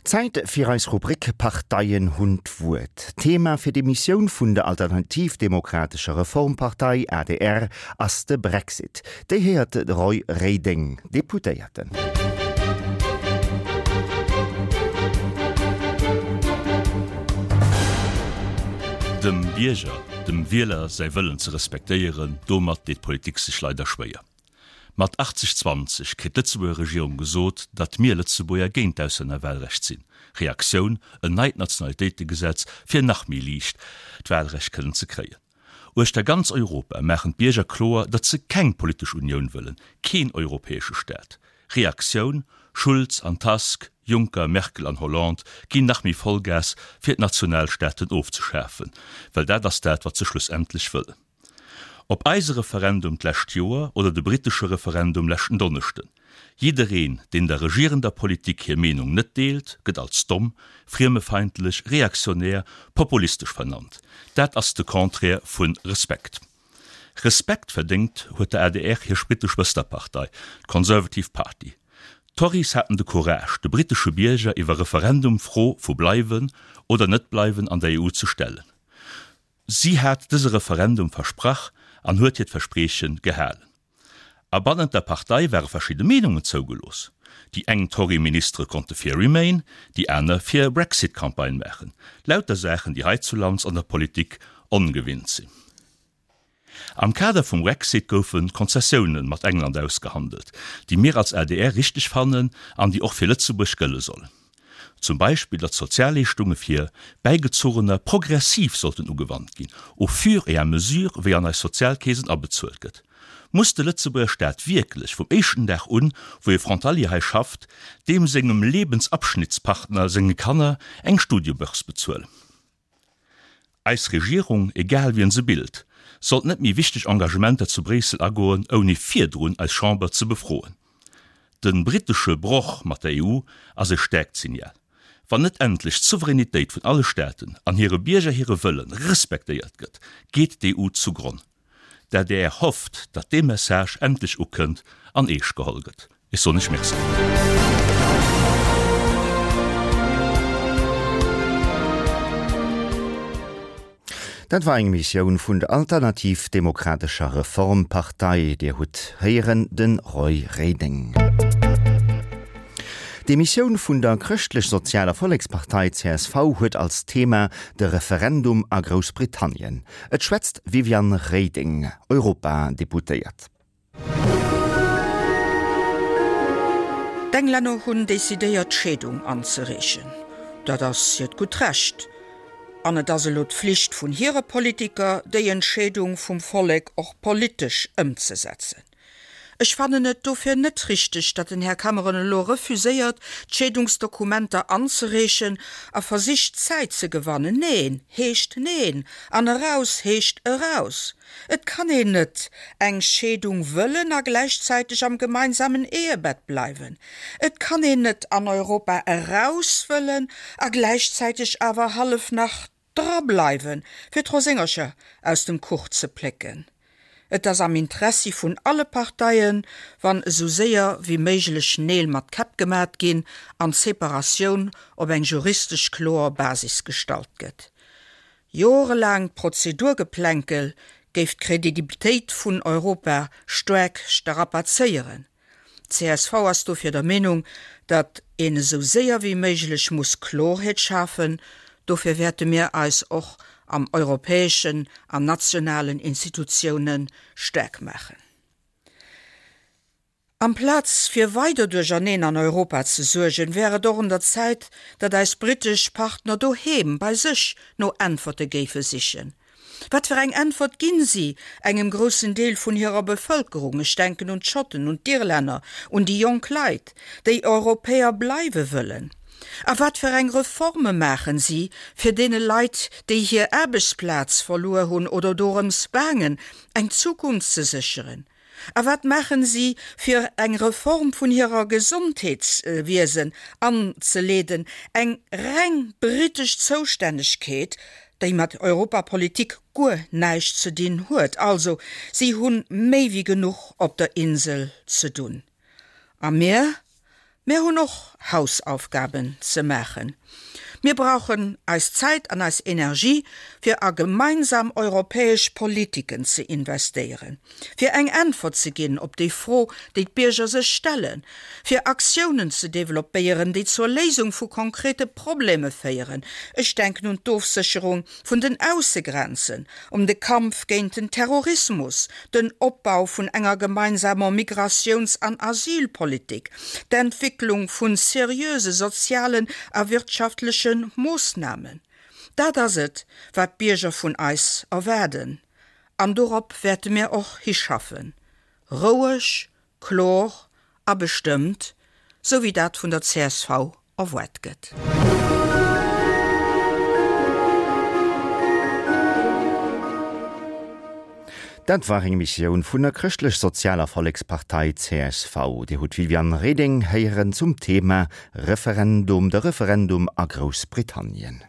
Zäit fir eis Rubrik Parteien hunn d'Wuert. Thema fir d'Emissioun vun der Alternativ-Demokratescher Reformpartei, adr, ass de Brexit. Déi héiert de Roy Reding, Deputéierten. Dem Bierger, dem Wieler säi Wëllen ze respektéieren, domat deet d'Politik sech leider schwéier. Mat 80, 20 kritt d'Lëtzebuerger Regierung gesot, datt mir Lëtzebuerger géint d'Auslännerwahlrecht sinn. Reaktioun, en neit Nationalitéitegesetz, fir nach méi liicht d'Wahlrecht kënnen ze kréien. Uechter ganz Europa maachen d'Bierger kloer, datt se keng politesch Unioun wëllen, keen europäesche Staat. Reaktioun, Schulz an Tusk, Juncker, Merkel an Hollande ginn nach méi Vollgas, fir d'Nationalstaaten ofzeschafen, well dat ass dat, wat se schlussendlech wëllen. Ob eise Referendum d'lescht Joer oder de brittesche Referendum leschten Donneschden, jiddereen, deen der regierender Politik hir Meenung net deelt, gëtt als domm, friemefeindlech, reaktionär, populistesch vernannt. Dat ass de Contraire vu Respekt. Respekt verdéngt huet der adr hir brittesch Schwësterpartei, d'Conservative Party. D'Tories haten de Courage, de brittesche Bierger iwwer Referendum d'Fro vu bleiwen oder net bleiwen an der EU ze stellen. Si hat dëse Referendum versprach an huet hiert Versprieche gehalen. A bannent der Partei ware verschidde Meenungen zougelooss. Déi eng Tory-Ministere konnte fir Remain, déi aner fir Brexit Campagne maachen. Lauter Saachen, déi heizulands an der Politik ongewinnt sinn. Am Kader vum Brexit goufe Konzessioune mat England ausgehandelt, déi mir als adr richteg fannen an déi och fir Lëtzebuerg gëlle sollen. Zum Beispill, datt d'Sozialleeschtunge fir Bäigezuchener progressiv sollten ugewannt ginn, au fur et à mesure wéi an eis Sozialkeesen abezuelt gëtt. Muss de Lëtzebuerger Staat wierklech vum éischten Dag un, wou e Frontalier hei schafft, deem sengem Lebensabschnittspartner senge Kanner eng Studiebörse bezuelen? Eis Regierung, egal wien se bilt, sollt net méi wichteg Engagementer zu Bréissel agoen, ouni virdrun eis Chamber ze befroen. De brittesche Broch mat der EU ass e staarkt Signal. Wann net endlech d'Souveränitéit vun alle Staaten an hire Bierger hire Wëlle respektéiert gëtt, geet d'EU zugronn. D'adr hofft, datt dee Message endlech ukënnt an eescht geholl gëtt. Ech soen Iech Merci. Dat war eng Emissioun vun der Alternativ Demokratescher Reformpartei. Dir hutt héieren de Roy Reding. D'Emissioun vun der Chrëschtlech-Sozialer Vollekspartei, csv, huet als Thema de Referendum a Groussbritannien. Et schwätzt d'Viviane Reding, Europadeputéiert. D'Englänner hunn decidéiert d'Scheedung anzereechen. Dat ass hiert gutt Recht. An et ass elo d'Flicht vun hire Politiker, déi Entscheedung vum Vollek och politesch ëmzesetzen. Ech fannen et dofir net richteg, datt den Här Cameron elo refuséiert, d'Scheedungsdokumenter anzereechen a versicht Zäit ze gewannen. Neen heescht Neen an eraus heescht eraus. Et kann een net eng Scheedung wëllen a gläichzäiteg am gemeinsamen Ehebett bleiwen. Et kann een net an Europa eraus wëllen a gläichzäiteg awer hallef nach Dra bleiwen, fir d'Roséngercher aus dem Kuch ze plécken. Et ass am Interessi vun alle Parteien, wann esou séier wéi méiglech Neel mat Käpp gemat ginn an d'Separatioun op eng juristesch kloer Basis gestallt gëtt. Jorelaangt Prozedurgeplänkel géif d'Credibilitéit vun Europa staark strapazéieren. Csv ass dofir der Meenung, datt een esou séier wéi méiglech muss Klorheet schafen. Dofir wäerte mir eis och am europäeschen an nationalen Institutioune staark maachen. Amplaz fir weider Duercherneen an Europa ze suergen, wär et och un der Zäit, datt eis britesch Partner doheem bei sech no Äntwerte géife sichen. Wat fir eng Äntwert ginn si engem groussen Deel vun hirer Bevëlkerung, ech denken un d'Schotten, un d'Irlänner, un déi jonk Leit, déi Europäer bleiwe wëllen? A wat fir eng Reforme maachen si, fir deene Leit, déi hir Aarbechtsplaz verluer hunn oder dorëms baangen, eng Zukunft ze sécheren? A wat maachen si, fir eng Reform vun hirer Gesondheetswiesen anzeleeden, eng reng britesch Zoustännegkeet, déi mat Europapolitik guer näischt ze dinn huet? Also, si hu méi wéi genuch op der Insel ze dunn. A mir? Mär hunn och Hausaufgaben ze maachen. Mir brauchen eis Zäit an eis Energie, fir a gemeinsam europäesch Politiken ze investéieren, fir eng Äntwert ze ginn op déi Fro, déi d'Bierger sech stellen, fir Aktiounen ze developpéieren, déi zur Léisung vu konkrete Probleme féieren, ech denken un d'Ofsécherung vun den Aussegrenzen, um de Kampf géint den Terrorismus, den Opbau vun enger gemeinsamer Migratiouns an Asylpolitik, d'Entwicklung vun seriöse sozialen a wirtschaftleche Moossnamen. Dat ass et, wat d'Bierger vun eis erwaarden, an dorop wäerte mir och hischaffen, roueg, Klor a bestëmmt, sou wéi dat vun der csv erwaart gëtt. Dat war eng Emissioun vun der Chrëschtlech-Sozialer Vollekspartei, csv. Dir hutt d'Viviane Reding héieren zum Thema Referendum, de Referendum a Groussbritannien.